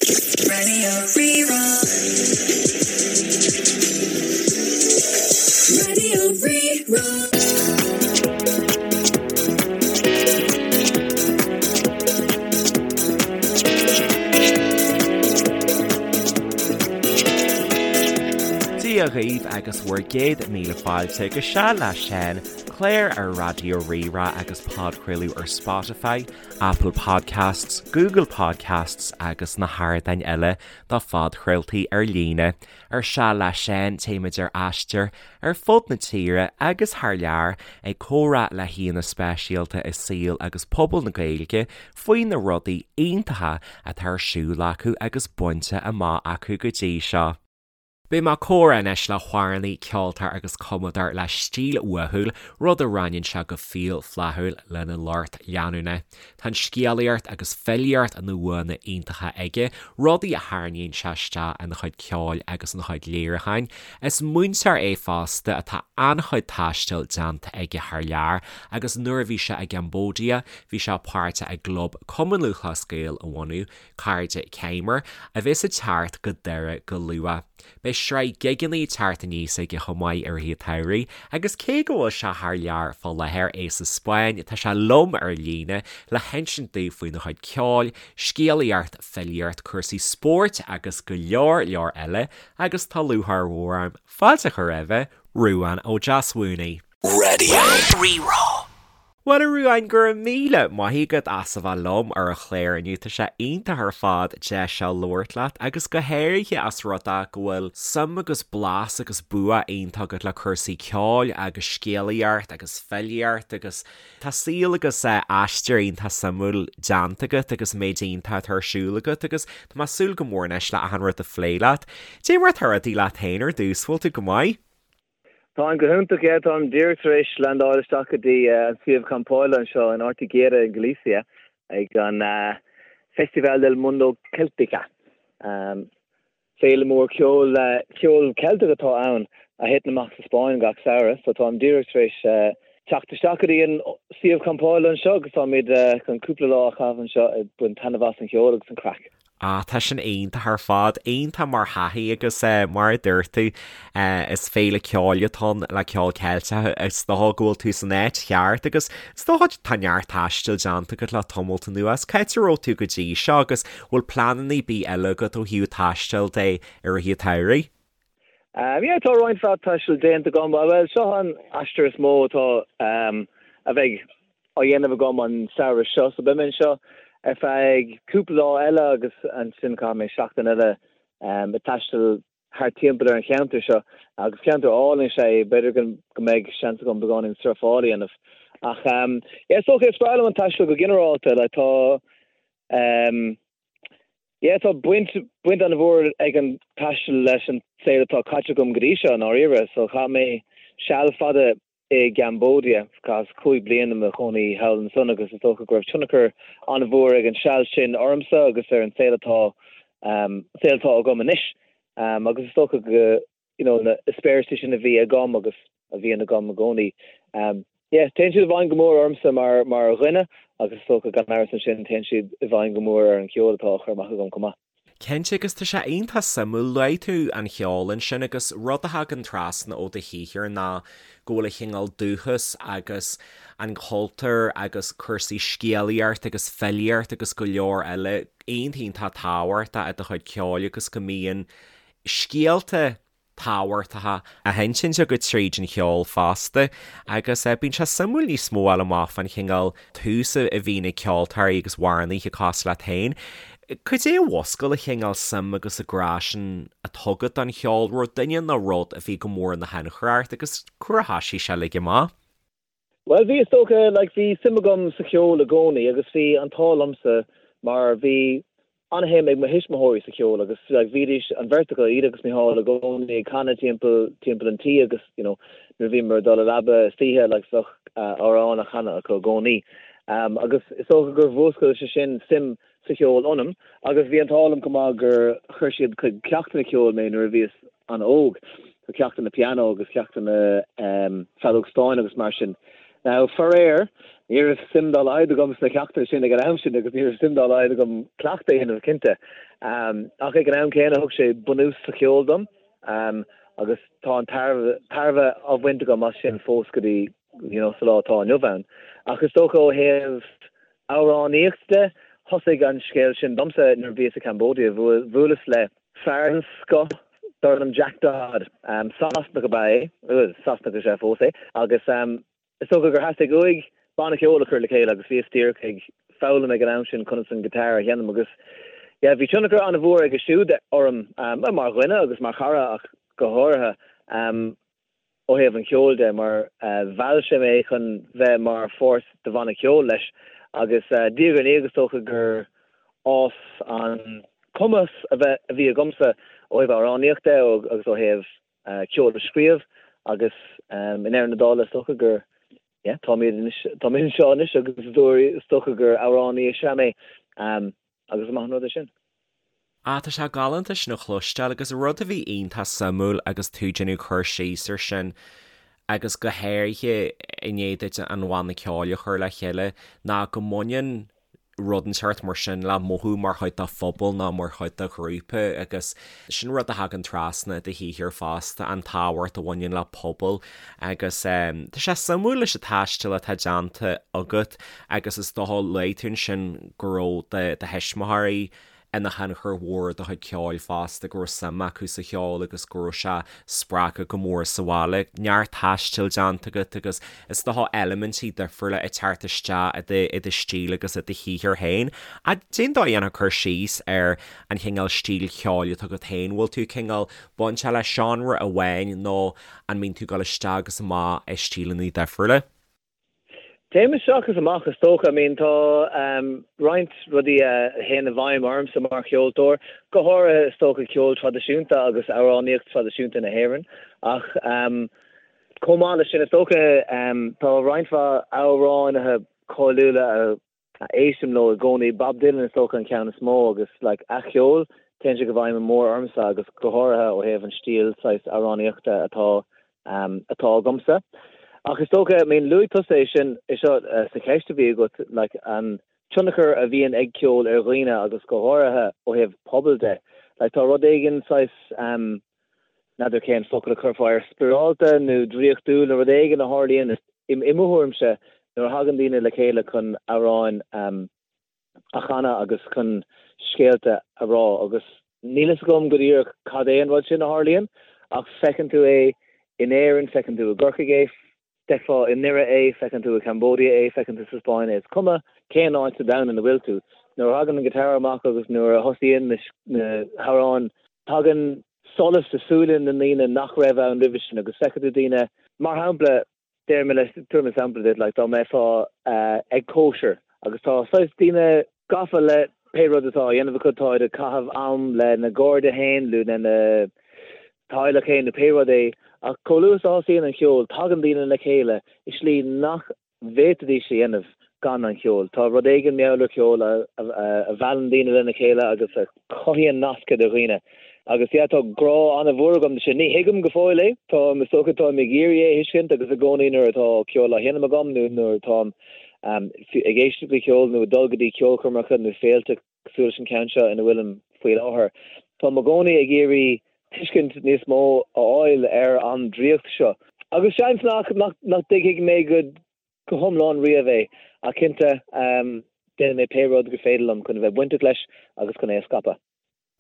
Radio Rí-Rá. Radio Rí-Rá. Dia dhaoibh agus bhur gcéad míle fáilte go Seal le Seán, clár ar Raidió Rí-Rá agus podchraoladh ar Spotify, Apple Podcasts, Google Podcasts agus na hardáin eile do phodchraoltaí ar líne. Ar Seal le Seán téimid ar aistear ar fud na tíre agus thar lear ag comhrá le haíonna speisialta i saol agus pobal na Gaeilge faoi na rudaí iontacha atá ar siúl acu agus bainte amach acu go dtí seo. Beidh mé ag comhrá anois le hamhránaí, ceoltóir agus cumadóir le stíl uathúil, rud a roinneann sé go fial flaithiúil lena lucht leanúna. Tá an scéalaíocht agus filíocht ina bhuanna iontacha aige, rudaí a tharraingíonn sé isteach ina chuid ceoil agus ina chuid léiriúcháin. Is múinteoir é fosta atá an-chuid taistil déanta aige thar lear agus nuair a bhí sé i gCambodia bhí sé páirteach i gclub Cumann Lúthchleas Gael a bhunú. Cairde Khmer, a bheas ag teacht go Doire go luath. Beidh sraith gigeanna ag teacht aníos aige chomh maith i rith an tsamhraidh agus cé go bhfuil sé thar lear fá láthair, é sa Spáinn, tá sé liom ar líne le hinsint daoibh faoina chuid ceoil, scéalaíocht, filíocht, cúrsaí spóirt agus go leor leor eile agus tá lúcháir mhór orm fáilte a chur roimhe, Ruadhán Ó Deasmhúnaigh. Radio Rí-Rá. Bhuel a Ruadháin, go raibh míle maith agat as a bheith liom ar an chlár inniu. Tá sé iontach ar fad deis seo labhairt leat agus go háirithe as rud é go bhfuil suim agus blas agus bua iontach agat le cúrsaí ceoil agus scéalaíocht agus filíocht agus tá saol agus aistear iontach suimiúil déanta agat agus méid iontach atá ar siúl agat agus tá mé ag súil go mór anois le achan rud a phlé leat. Dé mar atá rudaí leat féin ar dtús, bhfuil tú go maith? Táim go hiontach, yeah. Táim díreach tar éis landáil isteach go dtí an suíomh campála anseo in Ortigueira in Galicia ag an Festival del Mundo Celtica. Féile mór ceoil, ceol Ceilteach atá ann a thiteann amach sa Spáinn gach samhradh. So táim díreach tar éis teacht isteach go dtí an suíomh campála anseo agus táimid chun cúpla lá a chaitheamh anseo ag baint taitneamh as an cheol agus an craic. Ah, tá sin iontach ar fad, iontach mar thaithí agus mar a dúirt tú, is féile ceoil atá ann le ceol Ceilteach, is dócha go bhfuil tú san áit cheart agus is dócha tá neart taistil déanta agat le tamalt anuas. Cá háit a raibh tú go dtí seo agus bhfuil pleananna ar bith eile agat ó thaobh taistil de i rith an tsamhraidh? Yeah, tá roinnt mhaith taistil déanta agam. Bhuel, seo an aistear is mó atá, a bheidh á dhéanamh agam an samhradh seo. So beidh mé anseo ar feadh cúpla lá eile agus ansin caithfidh mé seachtain eile ag taisteal thart timpeall ar an cheantar seo. Agus ceantar álainn is ea é, b'fhéidir go mbeidh seans agam beagáinín surfáil a dhéanamh. Ach yeah, is dócha, is breá liom an taisteal go ginearálta. Like tá, Yeah, tá baint, baint an-mhór ag an taisteal leis an saol atá caite agam go dtí seo, i ndáiríre. So chaith mé seal fada i gCambodia, chaitheas 5 bliana i mo chónaí thall ansan agus is dócha go raibh tionchar an-mhór ag an seal sin ormsa agus ar an saol atá, saol atá agam anois. Agus is dócha go, you know, na heispéiris sin a bhí agam agus a bhíonn agam i gcónaí. Yeah, téann siad i bhfeidhm go mór ormsa mar, mar dhuine agus is dócha gan amhras ansin téann siad i bhfeidhm go mór ar an cheol atá á chur amach agam chomh maith. Cinnte, agus tá sé iontach suimiúil, luaigh tú an cheol ansin agus rud a thagann trasna ó do shaothar ná go bhfuil an chineál dúchas agus an cultúr agus cúrsaí scéalaíocht agus filíocht agus go leor eile iontach iontach tábhachtach i do chuid ceoil agus go mbíonn scéalta tábhachtacha á hinsint agat tríd an cheol fosta agus bíonn sé suimiúil níos mó a fháil amach fán chineál tús a bhíonn ag ceoltóirí agus amhránaithe cosúil leat féin. Cad é a mhúscail an chineál suim agus an grá sin atá agat don cheol, raibh duine nó rud a bhí go mór ina thionchar ort agus cá huair a thoisigh sé uilig amach? Bhuel, bhí, is dócha, like, bhí suim agam sa cheol i gcónaí agus bhí an t-ádh liomsa mar bhí an-shuim ag mo thuismitheoirí sa cheol agus, like, bhídís, an bheirt acu, iad agus Micheál, i gcónaí ag canadh timpeall, timpeall an tí agus, you know, nuair a bhíomar ag dul a leaba istoíche, like, bheadh amhrán á chanadh acu i gcónaí. Agus is dócha gur mhúscail sé sin suim sa cheol ionam agus bhí an t-ádh liom chomh maith gur chuir siad chuig ceachtanna ceoil mé nuair a bhíos an-óg, so ceachtanna pianó agus ceachtanna feadóg stáin agus mar sin. Now, faraor, ní raibh suim dá laghad agam sna ceachtanna sin ag an am sin agus ní raibh suim dá laghad agam cleachtadh a dhéanamh, cinnte. Ach ag an am céanna thug sé bunús sa cheol dom agus tá an tairbhe á bhaint agam as sin fós go dtí, you know, sa lá atá inniu ann. Ach is dócha ó thaobh amhránaíocht de, thosaigh an scéal sin domsa nuair a bhíos i Cambodia. Bhuaileas le fear den scoth darb ainm Jack Dodd. Sasanach ab ea é, bhuel, Sasanach is ea fós é, agus is dócha gur theastaigh uaidh banna ceoil a chur le chéile agus bhíos díreach ag foghlaim ag an am sin conas an guitar a sheinm agus yeah, bhí tionchar an-mhór aige siúd orm, mar dhuine agus mar chara ach go háirithe. ó thaobh an cheoil de, mar mheall sé mé chun bheith mar pháirt de bhanna ceoil leis agus diaidh ar ndiaidh is dócha gur fhás an cumas a bheith a bhí agamsa ó thaobh amhránaíocht de agus ó thaobh ceol a scríobh agus i ndeireadh na dála is dócha gur yeah táimid anois táimid anseo anois agus is dócha gur amhránaí is ea mé agus is maith an rud é sin. Ah, tá sé galánta sin a chloisteáil agus rud a bhí iontach suimiúil agus tú ag déanamh cur síos ar sin agus go háirithe i ndiaidh duit an bhanna ceoil a chur le chéile ná go mbaineann rud inteacht mar sin le mothú mar chuid de phobal nó mar chuid de ghrúpa agus sin rud a thagann trasna i do shaothar fosta, an tábhacht a bhaineann le pobal agus tá sé suimiúil leis an taisteal atá déanta agat agus is dócha luaigh tú ansin go raibh do thuismitheoirí ina thionchar mhór ar do chuid ceoil fosta, go raibh suim acu sa cheol agus go raibh sé spreagtha go mór sa bhaile. Neart taistil déanta agat agus is dócha eilimintí difriúla ag teacht isteach i do stíl agus i do shaothar féin. Cén dóigh a ndéanfá cur síos ar an chineál stíl cheoil atá agat féin? Bhfuil tú cineál bainteach le seánra amháin nó an mbíonn tú ag dul isteach agus amach i stíleanna difriúla? Téim isteach is amach is dócha. I mean tá roinnt rudaí a théann i bhfeidhm ormsa mar cheoltóir, go háirithe is dócha ceol traidisiúnta agus amhránaíocht traidisiúnta na hÉireann ach chomh maith leis sin is dócha tá roinnt mhaith amhránaithe cáiliúla a a éistim leo i gcónaí. Bob Dylan is dócha an ceann is mó agus like a cheol, téann sé go bhfeidhm mór ormsa agus go háirithe ó thaobh an stíl saghas amhránaíochta atá atá agamsa. Ach is dócha, I mean luaigh tusa é sin é seo sa cheist a bhí agat like an tionchar a bhíonn ag ceol ar dhaoine agus go háirithe ó thaobh pobail de. Like tá rud éigin saghas n'fheadar cén focal a chuirfeá air, spioradálta nó draíochtúil nó rud éigin a tharlaíonn, i mo thuairimse, nuair a thagann daoine le chéile chun amhráin a chanadh agus chun scéalta a rá. Agus níl fhios agam go díreach cad é an rud sin a tharlaíonn, ach feiceann tú é in Éirinn, feiceann tú i gCorcaigh é, D'fheicfeá i nDoire é, feiceann tú i Cambodia é, feiceann tú sa Spáinn é, is cuma cén áit sa domhan ina bhfuil tú. Nuair a thagann an guitar amach agus nuair a thosaíonn na hamhráin, tagann solas i súile na ndaoine nach raibh ann roimhe sin agus feicfidh tú daoine, mar shampla, déarfaidh mé leis, tabharfaidh mé sampla duit, like dá mbeifeá ag cóisir agus tá saghas daoine gafa le pé rud atá á dhéanamh acu, táid ag caitheamh am lena gcairde féin nó lena teaghlach féin nó pé rud é, ach chomh luath is a thosaíonn an cheol, tagann daoine le chéile i slí nach bhféadfaidís a dhéanamh gan an cheol. Tá rud éigin mar gheall ar cheol a mheallann daoine lena chéile agus a chothaíonn nasc idir dhaoine. Agus yeah, tá grá an-mhór agam do sin. Ní thuigim go fóill é, táim, is dócha, táim ag iarraidh é a thuiscint agus i gcónaí nuair atá ceol á sheinm agam nó nuair atáim ag éisteacht le ceol nó ag dul go dtí ceolchoirmeacha nó féilte cosúil leis an ceann seo ina bhfuilim faoi láthair. Táim i gcónaí ag iarraidh tuiscint níos mó a fháil ar an draíocht seo. Agus seans nach nach dtuigfidh mé go go hiomlán riamh é, ach cinnte déanfaidh mé pé rud gur féidir liom chun a bheith bainteach leis agus chun é a scaipeadh.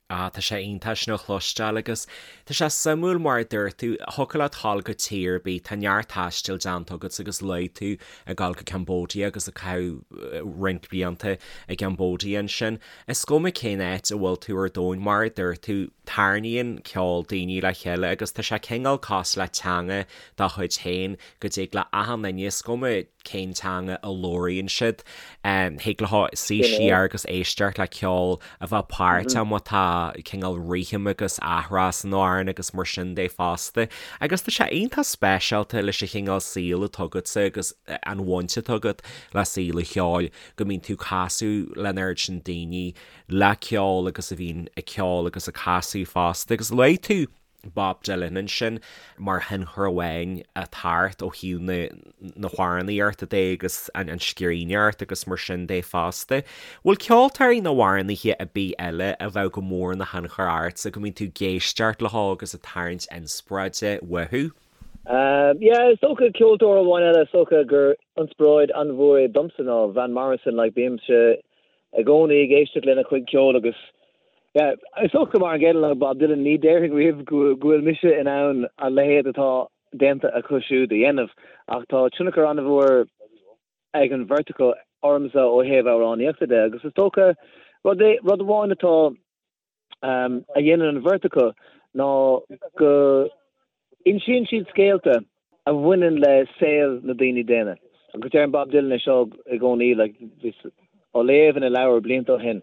Ah, tá sé iontach sin a chloisteáil agus tá sé suimiúil mar a dúirt tú, thiocfadh leat dhul go tír ar bith, tá neart taistil déanta agat agus luaigh tú ag dul go Cambodia agus ag caitheamh roinnt blianta i gCambodia ansin. Is cuma cén áit a bhfuil tú ar domhan, mar a dúirt tú, tarraingíonn ceol daoine le chéile agus tá sé cineál cosúil le teanga dá chuid féin go dtig le achan duine, is cuma cén teanga a labhraíonn siad. Thig leo suí siar agus éisteacht le ceol a bheith páirteach má tá cineál rithim agus athrá san amhrán agus mar sin de fosta. Agus tá sé iontach speisialta leis an chineál saoil atá agatsa agus an bhaint atá agat le saol an cheoil go mbíonn tú ag casadh leis an oiread sin daoine le ceol agus a bhíonn ag ceol agus ag casadh fosta. Agus luaigh tú. Bob Dylan ansin mar thionchar amháin ag teacht ó thaobh na na hamhránaíochta de agus an scríbhneoireacht agus mar sin de fosta. Bhfuil ceoltóirí nó amhránaithe ar bith eile a bheadh go mór ina thionchar ortsa go mbíonn tú ag éisteacht leo agus ag tarraingt inspioráide uathu? Yeah, is dócha ceoltóir amháin eile is dócha gur inspioráid an-mhór é domsa ná Van Morrison, like bímse i gcónaí ag éisteacht lena chuid ceoil agus yeah, is dócha mar an gcéanna le Bob Dylan, ní déarfainn riamh go bhfuil mise in ann a leithéid atá déanta acu siúd a dhéanamh ach tá tionchar an-mhór ag an bheirt acu ormsa ó thaobh amhránaíochta de agus is dócha rud é, rud amháin atá a dhéanann an bheirt acu ná go insíonn siad scéalta a bhaineann le saol na daoine daonna. Agus deireann Bob Dylan é seo i gcónaí, like, bhíos á léamh ina leabhar blianta ó shin,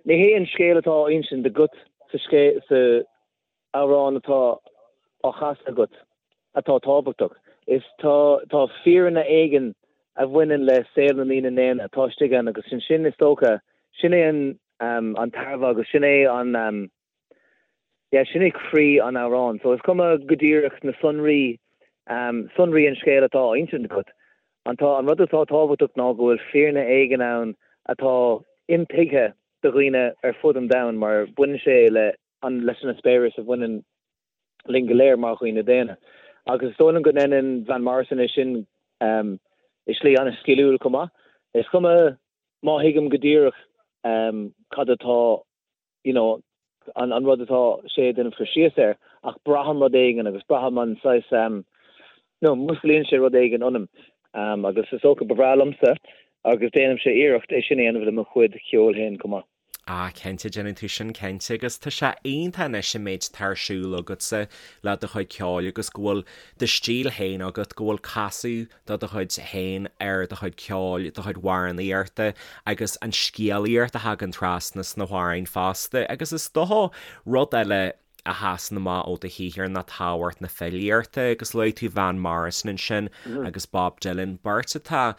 ní hé an scéal atá á insint agat sa scéal, sa amhrán atá á chasadh agat atá tábhachtach. Is tá, tá fírinne éigin a bhaineann le saol na ndaoine daonna atá istigh ann agus sin, sin is dócha, sin é an, an tairbhe agus sin é an, yeah, sin é croí an amhráin. So is cuma go díreach na sonraí, sonraí an scéil atá á insint agat. An tá, an rud atá tábhachtach ná go bhfuil fírinne éigin ann atá intuigthe do dhaoine ar fud an domhain mar baineann sé le an, leis an eispéireas a bhaineann linn go léir mar dhaoine daonna. Agus is dóigh liom go ndéanann Van Morrison é sin i slí an-sciliúil chomh maith. Is cuma má thuigim go díreach cad atá, you know, an, an rud atá sé ag déanamh cur síos air, ach braithim rud éigin agus braithim an saghas, you know, músclaíonn sé rud éigin ionam. Agus is dócha ba bhreá liomsa agus déanaimse iarracht é sin a dhéanamh le mo chuid ceoil féin chomh maith. Ah, cinnte, déanann tú sin cinnte agus tá sé iontach anois an méid atá ar siúl agatsa le do chuid ceoil agus go bhfuil do stíl féin agat, go bhfuil casadh de do chuid féin ar do chuid ceoil, do chuid amhránaíochta agus an scéalaíocht a thagann trasna sna hamhráin fosta agus is dócha rud eile a sheasann amach ó do shaothar ná tábhacht na filíochta agus luaigh tú Van Morrison ansin agus Bob Dylan, beirt atá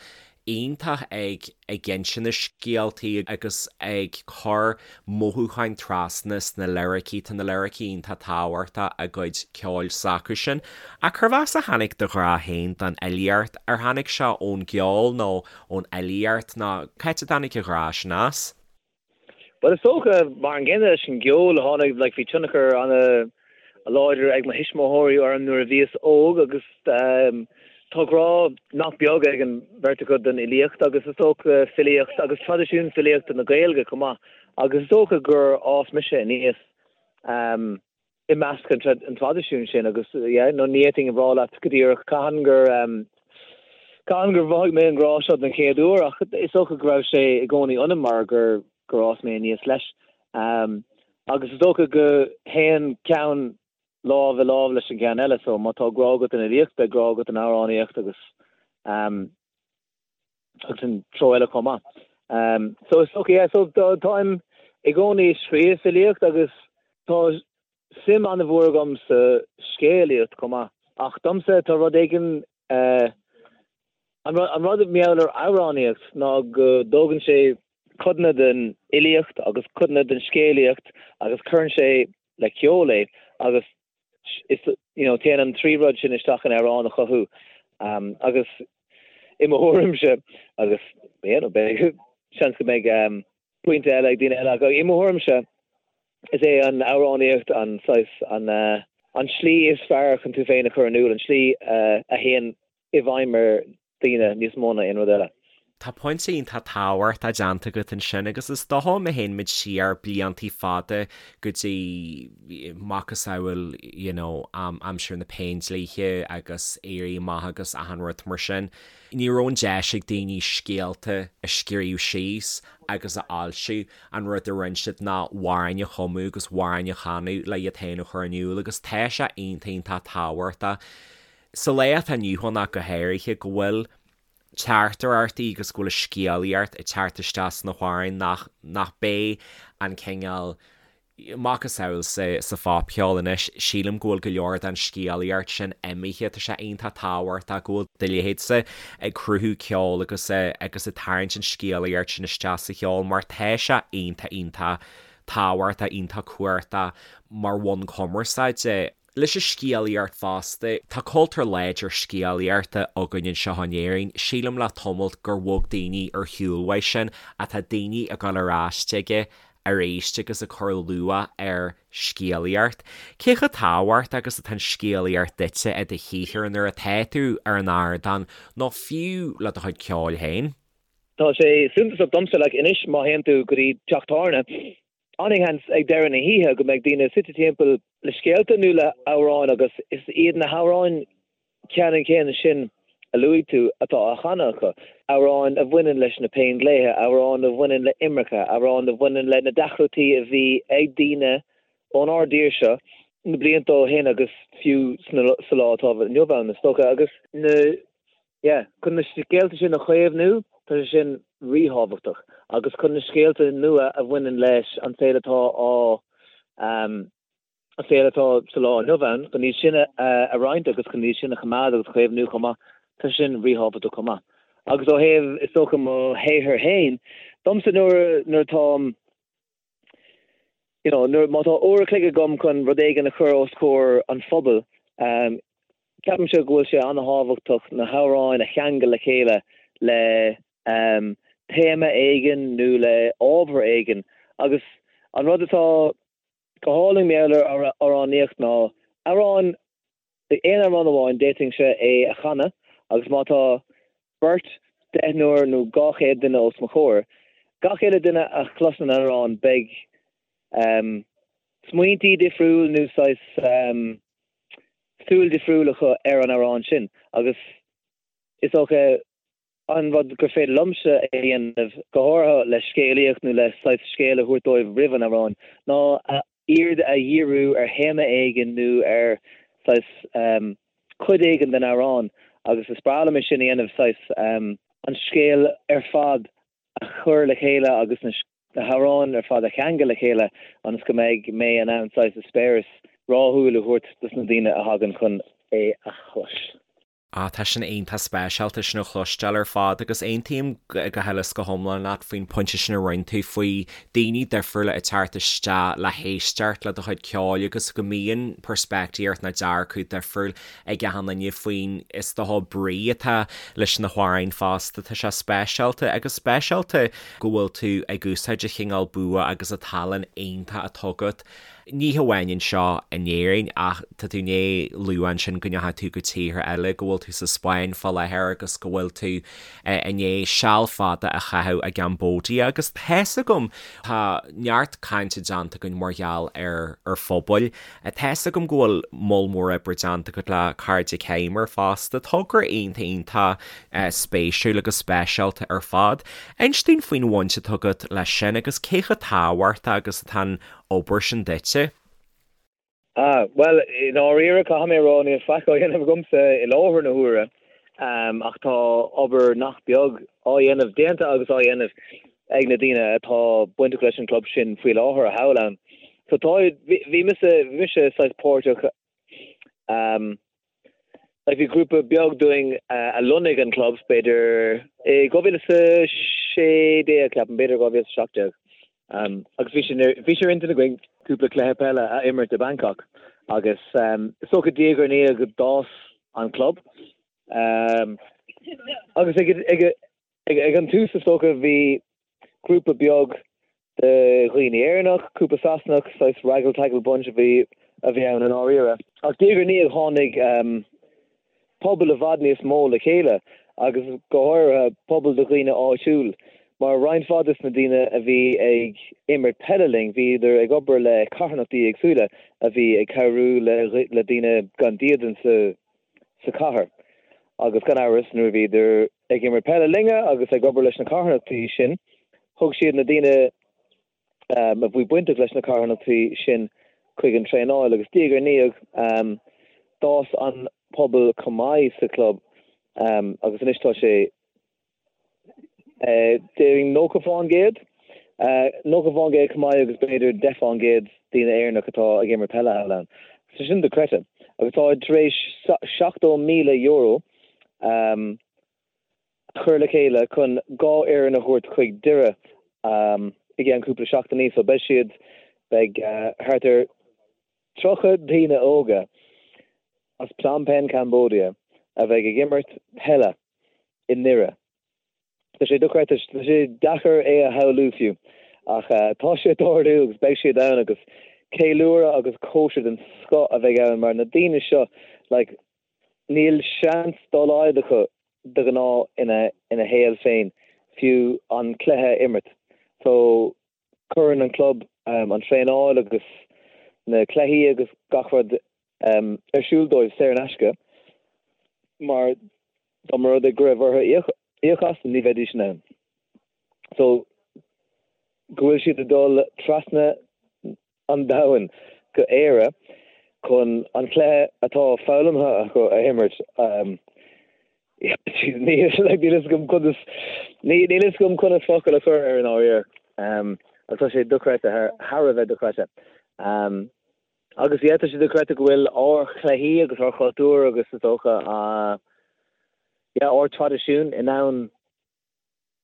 iontach ag ag insint na scéaltaí agus ag cur mothúcháin trasna sna liricí, tá na liricí iontach tábhachtach i gcuid ceoil s'acusan. Ach cérbh as a tháinig do ghrá féin don fhilíocht? Ar tháinig sé ón gceol nó ón fhilíocht nó cá háit a dtáinig an grá sin as? Bhuel, is dócha, mar an gcéanna leis an gceol, tháinig, like, bhí tionchar an-láidir ag mo thuismitheoirí orm nuair a bhíos óg agus tá grá nach beag ag an bheirt acu don fhilíocht agus is dócha filíocht agus traidisiún filíochta na Gaeilge chomh maith agus is dócha gur fhás mise aníos i measc an traidisiúin sin agus yeah no ní fhéadfainn a rá leat go díreach cathain gur cathain gur mhothaigh mé an grá seo den chéad uair ach is dócha go raibh sé i gcónaí ionam mar gur gur fhás mé aníos leis. Agus is dócha go théann ceann lámh i lámh leis an gceann eile so má tá grá agat don fhilíocht beidh grá agat don amhránaíocht agus agus an treo eile chomh maith. So is dócha, yeah, so táim i gcónaí ag scríobh filíocht agus tá suim an-mhór agam sa scéalaíocht chomh maith. Ach domsa tá rud éigin, an rud mar gheall ar amhránaíocht ná go dtógann sé codanna den fhilíocht agus codanna den scéalaíocht agus cuireann sé le ceol é agus is you know téann an trí rud sin isteach in amhrán a chothú agus i mo thuairimse agus you know beidh seans go mbeidh pointe eile ag daoine eile ach i mo thuairimse is é an amhránaíocht an saghas an an slí is fearr chun tú féin a chur in iúl, an slí a théann i bhfeidhm ar daoine níos mó ná aon rud eile. Tá pointe iontach tábhachtach déanta agat ansin agus is dócha má théann muid siar bliantaí fada go dtí macasamhail you know aimsir na Péindlíthe agus Éirí Amach agus achan rud mar sin, ní raibh an deis ag daoine scéalta a scríobh síos agus a fhoilsiú, an rud a rinne siad ná amhráin a chumadh agus amhráin a chanadh le iad féin a chur in iúl agus tá sé iontach iontach tábhachtach Sa lá atá inniu ann ach go háirithe, go bhfuil teachtaireachtaí agus go bhfuil scéalaíocht ag teacht isteach sna hamhráin nach, nach b'é an cineál macasamhail sa, sa phopcheol anois. Sílim go bhfuil go leor den scéalaíocht sin imithe. Tá sé iontach tábhachtach go bhfuil do leithéidse ag cruthú ceoil agus, agus ag tarraingt an scéalaíocht sin isteach sa cheol mar tá sé iontach, iontach tábhachtach, iontach cumhachtach mar bhonn cumarsáide. Leis an scéalaíocht fosta, tá cultúr láidir scéalaíochta againn anseo in Éirinn. Sílim le tamalt gur bhog daoine ar shiúl uaidh sin ach tá daoine ag dul ar ais chuige arís agus ag cur luach ar scéalaíocht. Cé chomh tábhachtach agus atá an scéalaíocht duitse i do shaothar nuair atá tú ar an ardán nó fiú le do chuid ceoil féin? Tá sé suntasach domsa, like, anois má théann tú go dtí teach tábhairne, An-sheans ag deireadh na hoíche go mbeidh daoine suite timpeall le scéalta nó le hamhráin agus is iad na hamhráin ceannann céanna sin a luaigh tú atá á chanadh acu, amhráin a bhaineann leis na Péindlíthe, amhráin a bhaineann le imirce, amhráin a bhaineann le na deacrachtaí a bhí ag daoine ónár dtír seo na blianta ó shin agus fiú sa lá atá inniu ann is dócha agus na Yeah, chun na scéalta sin a chaomhnú, tá sé sin ríthábhachtach. Agus chun na scéalta nua a bhaineann leis an saol atá á, an saol atá sa lá inniu ann, chun iad sin a roinnt agus chun iad sin a choimeád agus a chaomhnú chomh maith, tá sé sin ríthábhachtach chomh maith. Agus ó thaobh, is dócha, mo shaothar féin, domsa nuair, nuair atáim, you know, nuair, má tá uair a chloig agam chun rud éigin a chur os comhair an phobail, ceapaimse go bhfuil sé an-thábhachtach na hamhráin a cheangal le chéile le téama éigin nó le ábhar éigin. Agus an rud atá go hálainn mar gheall ar amhránaíocht ná amhrán, aon amhrán amháin, d'fhéadfainnse é a chanadh agus má tá beirt, deichniúr nó 200 duine os mo chomhair, gach uile duine a chloiseann an amhrán beidh smaointí difriúil nó saghas súil difriúil acu ar an amhrán sin agus is dócha an rud gur féidir liomsa a dhéanamh, go háirithe le scéalaíocht nó le saghas scéal a thabhairt dóibh roimh an amhrán, ná a aird a dhíriú ar théama éigin nó ar saghas cuid éigin den amhrán agus is breá liom é sin a dhéanamh, saghas an scéal ar fad a chur le chéile agus na hamhráin ar fad a cheangal le chéile ionas go mbeidh mé in ann saghas eispéireas rathúil a thabhairt dos na daoine a thagann chun é a chlos. Ah, tá sin iontach speisialta sin a chloisteáil ar fad agus aontaím go huile is go hiomlán leat faoin pointe sin a rinne tú faoi daoine difriúla ag teacht isteach le héisteacht le do chuid ceoil agus go mbíonn peirspictíocht nó dearcadh difriúil ag achan duine faoin is dócha brí atá leis na hamhráin fosta. Tá sé speisialta agus speisialta go bhfuil tú ag úsáid an chineál bua agus an tallann iontach atá agat Ní hamháin anseo in Éirinn ach tá tú i ndiaidh lua ansin go ndeachaigh tú go tíortha eile, go bhfuil tú sa Spáinn fá láthair agus go bhfuil tú i ndiaidh seal fada a chaitheamh i gCambodia agus tá's agam, tá neart cainte déanta againn mar gheall ar ar phobail, tá's agam go bhfuil moll mór oibre déanta agat le Cairde Coimir fosta, togra iontach iontach spéisiúil agus speisialta ar fad. Inis dúinn faoin bhaint atá agat leis sin agus cé chomh tábhachtach agus atá an obair sin duitse? Ah, bhuel, i ndáiríre, caithfidh mé a rá, níl faic á dhéanamh agamsa i láthair na huaire, ach tá obair nach beag á dhéanamh, déanta agus á dhéanamh ag na daoine atá bainteach leis an gclub sin faoi láthair thall ann. So tá, bhí mise, bhí mise saghas páirteach, Like bhí grúpa beag dúinn a lonnaigh an club, b'fhéidir i 2016, ceapaim, b'fhéidir 2017. Agus bhí sé bhí sé ar intinn againn cúpla cluiche peile a imirt i Bangkok agus is dócha diaidh ar ndiaidh d'fhás an club. Agus ag ag ag an tús is dócha bhí grúpa beag de dhaoine Éireannach, cúpla Sasanach, saghas raggle taggle bunch a bhí a bhí ann i ndáiríre. Ach diaidh ar ndiaidh tháinig pobal i bhfad níos mó le chéile agus go háirithe pobal de dhaoine áitiúil mar roinnt mhaith des na daoine a bhí ag imirt peile linn bhíodar ag obair le carthanachtaí éagsúla a bhí ag cabhrú le le daoine gan dídean sa sa chathair agus gan amhras nuair a bhíodar ag imirt peile linne agus ag obair leis na carthanachtaí sin thug siad na daoine a bhí bainteach leis na carthanachtaí sin chuig an traenáil agus diaidh ar ndiaidh d'fhás an pobal chomh maith sa chlub agus anois tá sé Déarfainn 90%, 90% chomh maith agus b'fhéidir 10% daoine Éireannach atá ag imirt peile thall ann. So sin dochreidte. Agus tá tar éis €70,000 a chur le chéile chun dhá fhoireann a thabhairt chuig Doire i gceann cúpla seachtainí. So beidh siad, beidh thart ar 30 daoine óga. as Phnom Penh, Cambodia a bheidh ag imirt peile i nDoire. Tá sé dochreidte, tá sé deacair é a shamhlú fiú, ach tá sé ag tarlú agus beidh siad ann agus ceiliúradh agus cóisir den scoth a bheidh ann mar na daoine seo, like, níl seans dá laghad acu de ghnáth ina ina shaol féin fiú an cluiche a imirt. So cuireann an club an traenáil agus na cluichí agus gach rud ar siúl dóibh saor in aisce mar dá mba rud é go raibh orthu íoc as ní bheidís in ann. So go bhfuil siad ag dul trasna an domhain go Éire chun an cluiche atá foghlamtha acu a imirt. Níl fhios agam conas níl fhios agam conas focal a chur air i ndáiríre. Ach tá sé dochreidte, thar a bheith dochreidte. Agus yeah, tá sé dochreidte go bhfuil ár chluichí agus ár chultúr agus is dócha yeah, ár traidisiún in ann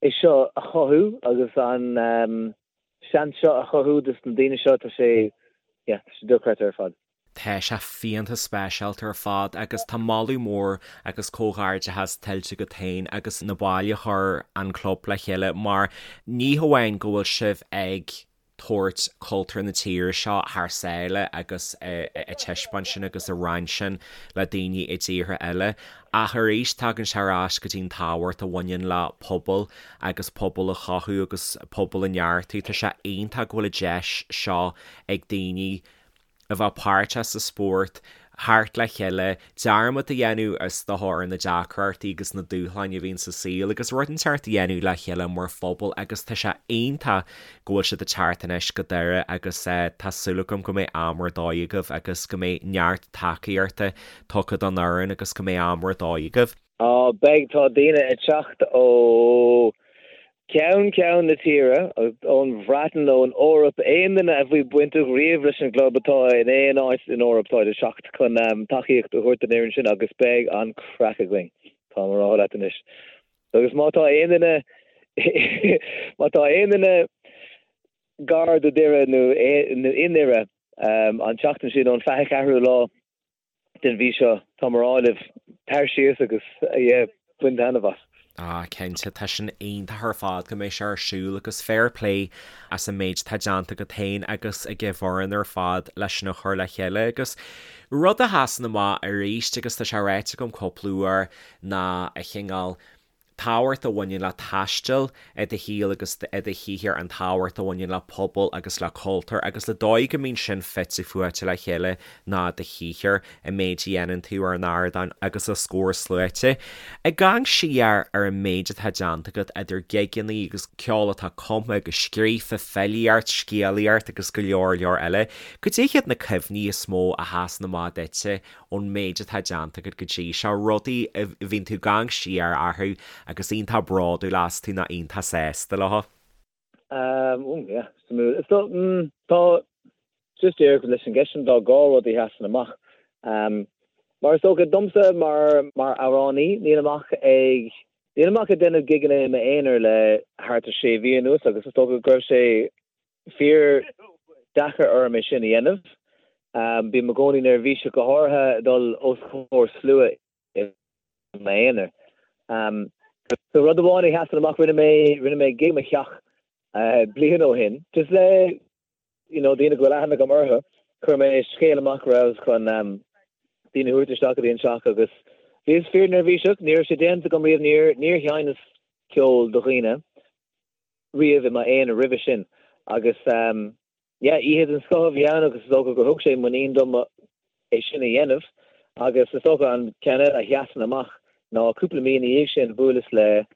é seo a chothú agus an seans seo a chothú dos na daoine seo, tá sé, yeah, tá sé dochreidte ar fad. Tá sé fiánta speisialta ar fad agus tá moladh mór agus comhghairdeachas tuillte agat féin agus na baill a chuir an club le chéile mar ní hamháin go bhfuil sibh ag tabhairt cultúr na tíre seo thar sáile agus ag taispeáint sin agus ag roinnt sin le daoine i dtíortha eile. Ach arís, tagann sé ar ais go dtí an tábhacht a bhaineann le pobal agus pobal a chothú agus pobal a neartú. Tá sé iontach go bhfuil an deis seo ag daoine a bheith páirteach sa spórt, theacht le chéile, dearmad a dhéanamh is dócha ar na deacrachtaí agus na dúshláin a bhíonn sa saol agus rud inteacht a dhéanamh le chéile mar phobal agus tá sé iontach go bhfuil siad ag teacht anois go Doire agus tá súil agam go mbeidh am ar dóigh agaibh agus go mbeidh neart tacaíochta tugtha don fhoireann agus go mbeidh am ar dóigh agaibh. Á, beidh, tá daoine ag teacht ó cheann ceann na tíre, ón Bhreatain, ón Eoraip, aon duine a bhí bainteach riamh leis an gclub atá in aon áit in Eoraip, táid ag teacht chun tacaíocht a thabhairt don fhoireann sin agus beidh an craic againn, táim á rá leat anois. Agus má tá aon duine, má tá aon duine gar do Dhoire nó i nDoire an tseachtain sin ón 24ú lá, den mhí seo, táim á rá libh, tar síos agus, yeah, bain taitneamh as. Ah, cinnte, tá sin iontach ar fad go mbeidh sé ar siúl agus fair play as an méid atá déanta agat féin agus ag an bhfoireann ar fad leis sin a chur le chéile agus rud a sheasann amach arís agus tá sé ráite agam cúpla uair ná an cineál tábhacht a bhaineann le taisteal i do shaol agus i do shaothar, an tábhacht a bhaineann le pobal agus le cultúr agus le dóigh go mbíonn sin fite fuaite le chéile ná do shaothar, an méid a dhéanann tú ar an ardán agus os comhair sluaite. Ag amharc siar ar an méid atá déanta agat idir gigeanna agus ceol atá cumtha agus scríofa, filíocht, scéalaíocht agus go leor leor eile, cad é hiad na cuimhní is mó a sheasann amach duitse ón méid atá déanta agat go dtí seo, rudaí a bhíonn tú ag amharc siar orthu agus iontach bródúil astu nó iontach sásta leo? Um, yeah, suimiúil. So, mm, tá, just díreach leis an gceist sin, tá dhá rud a sheasann amach. Um, mar is dócha domsa mar, mar amhránaí, nílim ach ag, nílim ach ag déanamh gigeanna i m'aonar le thart ar sé mhí anuas agus is dócha go raibh sé fíor deacair orm é sin a dhéanamh. Bím i gcónaí neirbhíseach, go háirithe dul os comhair slua i m'aonar. So rud amháin a sheasann amach, rinne mé, rinne mé gig i mo theach bliain ó shin, just le you know daoine go bhfuil aithne agam orthu. Chuir mé scéal amach go rabhas chun daoine a thabhairt isteach go dtí an teach agus bhíos fíor neirbhíseach, ní raibh sé déanta agam riamh, níor, níor sheinneas ceol do dhaoine. riamh i m'aonar roimhe sin agus yeah oíche den scoth a bhí ann agus is dócha gur thug sé muinín dom é sin a dhéanamh agus is dócha an ceann eile a sheasann amach ná cúpla mí ina dhiaidh sin bhuaileas le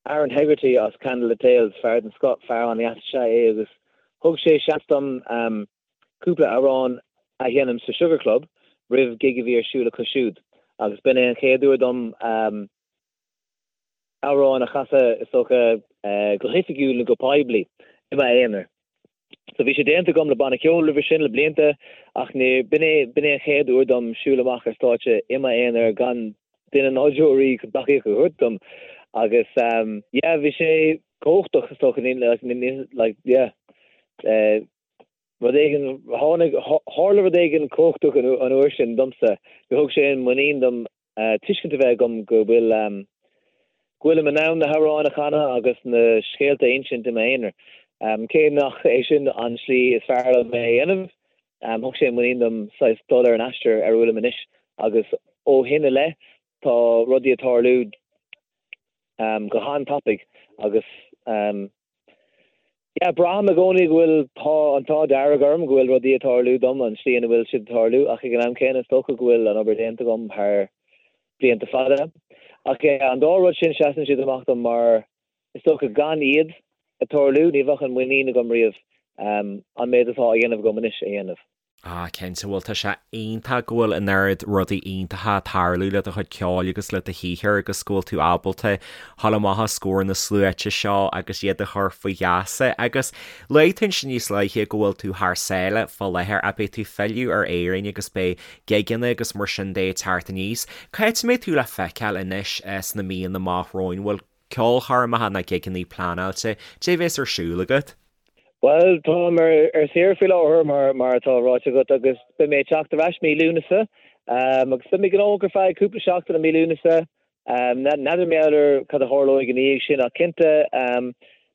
Aaron Hegarty as Candlelit Tales, fear den scoth, fear an-deas is ea é agus thug sé seans dom cúpla amhrán a sheinm sa Sugar Club roimh gig a bhí ar siúl acu siúd agus b'in é an chéad uair dom amhrán a chasadh, is dócha, go hoifigiúil nó go poiblí, i m'aonar. So bhí sé déanta agam le banna ceoil roimhe sin le blianta ach ní, b'in é, b'in é an chéad uair dom siúl amach ar stáitse i m'aonar gan duine ná deoraí chun tacaíocht a thabhairt dom agus yeah, bhí sé cumhachtach is dócha, ní, like, yeah. Rud éigin, tháinig, tharla rud éigin cumhachtach an uair sin domsa, gur thug sé an muinín dom tuiscint a bheith agam go bhfuil, go bhfuilim in ann na hamhráin a chanadh agus na scéalta a insint i m'aonar. Cé nach é sin an tslí is fearr liom é a dhéanamh, thug sé muinín dom saghas dul ar an aistear ar a bhfuilim anois agus ó shin i leith tá rudaí ag tarlú go han-tapaidh agus yeah, braithim i gcónaí go bhfuil tá an t-ádh dearg orm go bhfuil rudaí ag tarlú dom an tslí ina bhfuil siad ag tarlú ach ag an am céanna is dócha go bhfuil an obair déanta agam thar blianta fada. Ach yeah, an dá rud sin seasann siad amach dom mar is dócha gan iad ag tarlú ní bheadh an muinín agam riamh an méid atá á dhéanamh agam anois a dhéanamh. Ah, cinnte, bhuel tá sé iontach go bhfuil an oiread rudaí iontacha ag tarlú le do chuid ceoil agus le do shaothar agus go bhfuil tú ábalta dhul amach os comhair na sluaite seo agus iad a chur faoi gheasa. Agus luaigh tú ansin níos luaithe go bhfuil tú thar sáile fá láthair ach beidh tú ag filleadh ar Éirinn agus beidh gigeanna agus mar sin de ag teacht aníos. Cá háit a mbeidh tú le feiceáil anois sna míonna amach romhainn? Bhfuil ceolchoirmeacha ná gigeanna pleanáilte? Cad é a bheas ar siúl agat? Bhuel, táim ar saoire faoi láthair, mar atá ráite agat, agus beidh mé ag teacht ar ais mí Lúnasa. Agus beidh mé gnóthach ar feadh cúpla seachtain i mí Lúnasa. N'fheadar mar gheall ar cad a tharlóidh ina dhiaidh sin, ach cinnte,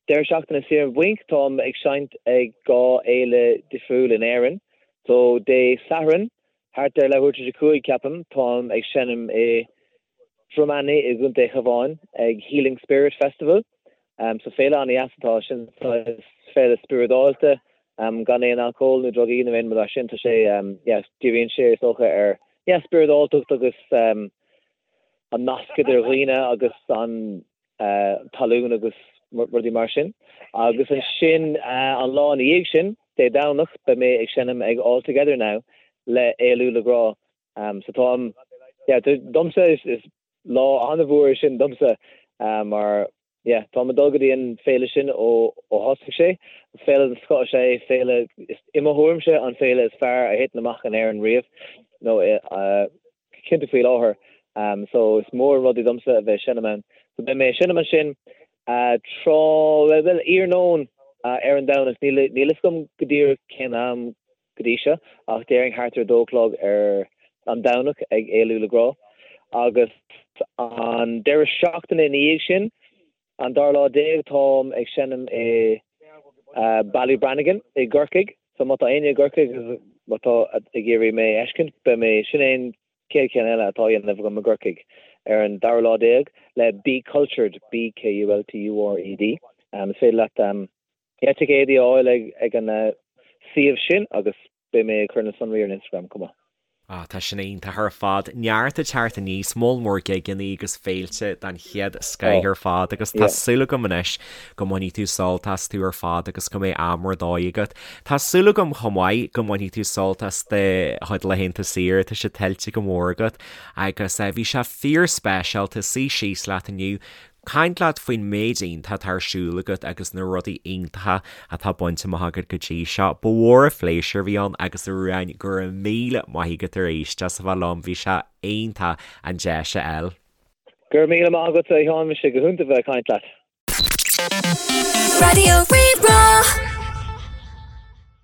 deireadh seachtaine saor an bhainc, táim ag seinnt ag 2 fhéile difriúil in Éirinn. So, Dé Sathairn, thart ar leathuair tar éis a 5, ceapaim, táim ag seinm i Droim Ainidh i gContae an Chabháin ag Healing Spirit Festival. So féile an-dheas atá ansin, saghas féile spioradálta, gan aon alcól nó drugaí nó aon rud mar sin. Tá sé, yeah, díríonn sé is dócha ar, yeah, spioradáltacht agus an nasc idir dhaoine agus an talún agus rudaí mar sin. Agus ansin an lá ina dhiaidh sin, Dé Domhnach, beidh mé ag seinm ag All Together Now le Éalú le Grá. So táim, yeah, domsa is, is lá an-mhór é sin domsa mar, yeah, táim ag dul go dtí an féile sin ó ó thosaigh sé. Féile den scoth is ea é, féile, is, i mo thuairimse, an féile is fearr a thiteann amach in Éirinn riamh, nó cinnte faoi láthair. So is mór an rud é domsa a bheith ag seinm ann. So beidh mé ag seinm ansin tráth, bhuel, iarnóin ar an Domhnach, níl, níl fhios agam go díreach cén am go dtí seo, ach déarfainn thart ar a dó a chlog ar an Domhnach ag Éalú le Grá. Agus an deireadh seachtaine ina dhiaidh sin, an dara lá déag, táim ag seinm i Ballybrannigan i gCorcaigh. So má tá éinne i gCorcaigh agus má tá ag iarraidh mé a fheiscint, beidh mé, sin é an chéad cheann eile atá á dhéanamh agam i gCorcaigh ar an dara lá déag le Be Kultured, B-K-U-L-T-U-R-E-D. Is féidir leat Yeah, ticéadaí a fháil ag an suíomh sin agus beidh mé ag cur na sonraí ar an Instagram chomh maith. Ah, tá sin iontach ar fad. Neart ag teacht aníos, moll mór gigeanna agus féilte den chéad scoith ar fad agus tá súil agam anois go mbainfidh tú sult astu ar fad agus go mbeidh am ar dóigh agat. Tá súil agam chomh maith go mbainfidh tú sult as do chuid laethanta saoire, tá sé tuillte go mór agat agus bhí sé fíor speisialta suí síos leat inniu Caint leat faoin méid iontach atá ar siúl agat agus na rudaí iontacha atá bainte amach agat go dtí seo. Ba mhór an phléisiúr a bhí ann agus a Ruadháin, go raibh míle maith agat arís as a bheith liom, bhí sé iontach an deis a fháil. Go raibh míle maith agat a Sheáin, bhí sé go hiontach bheith ag caint leat. Raidió Rí-Rá.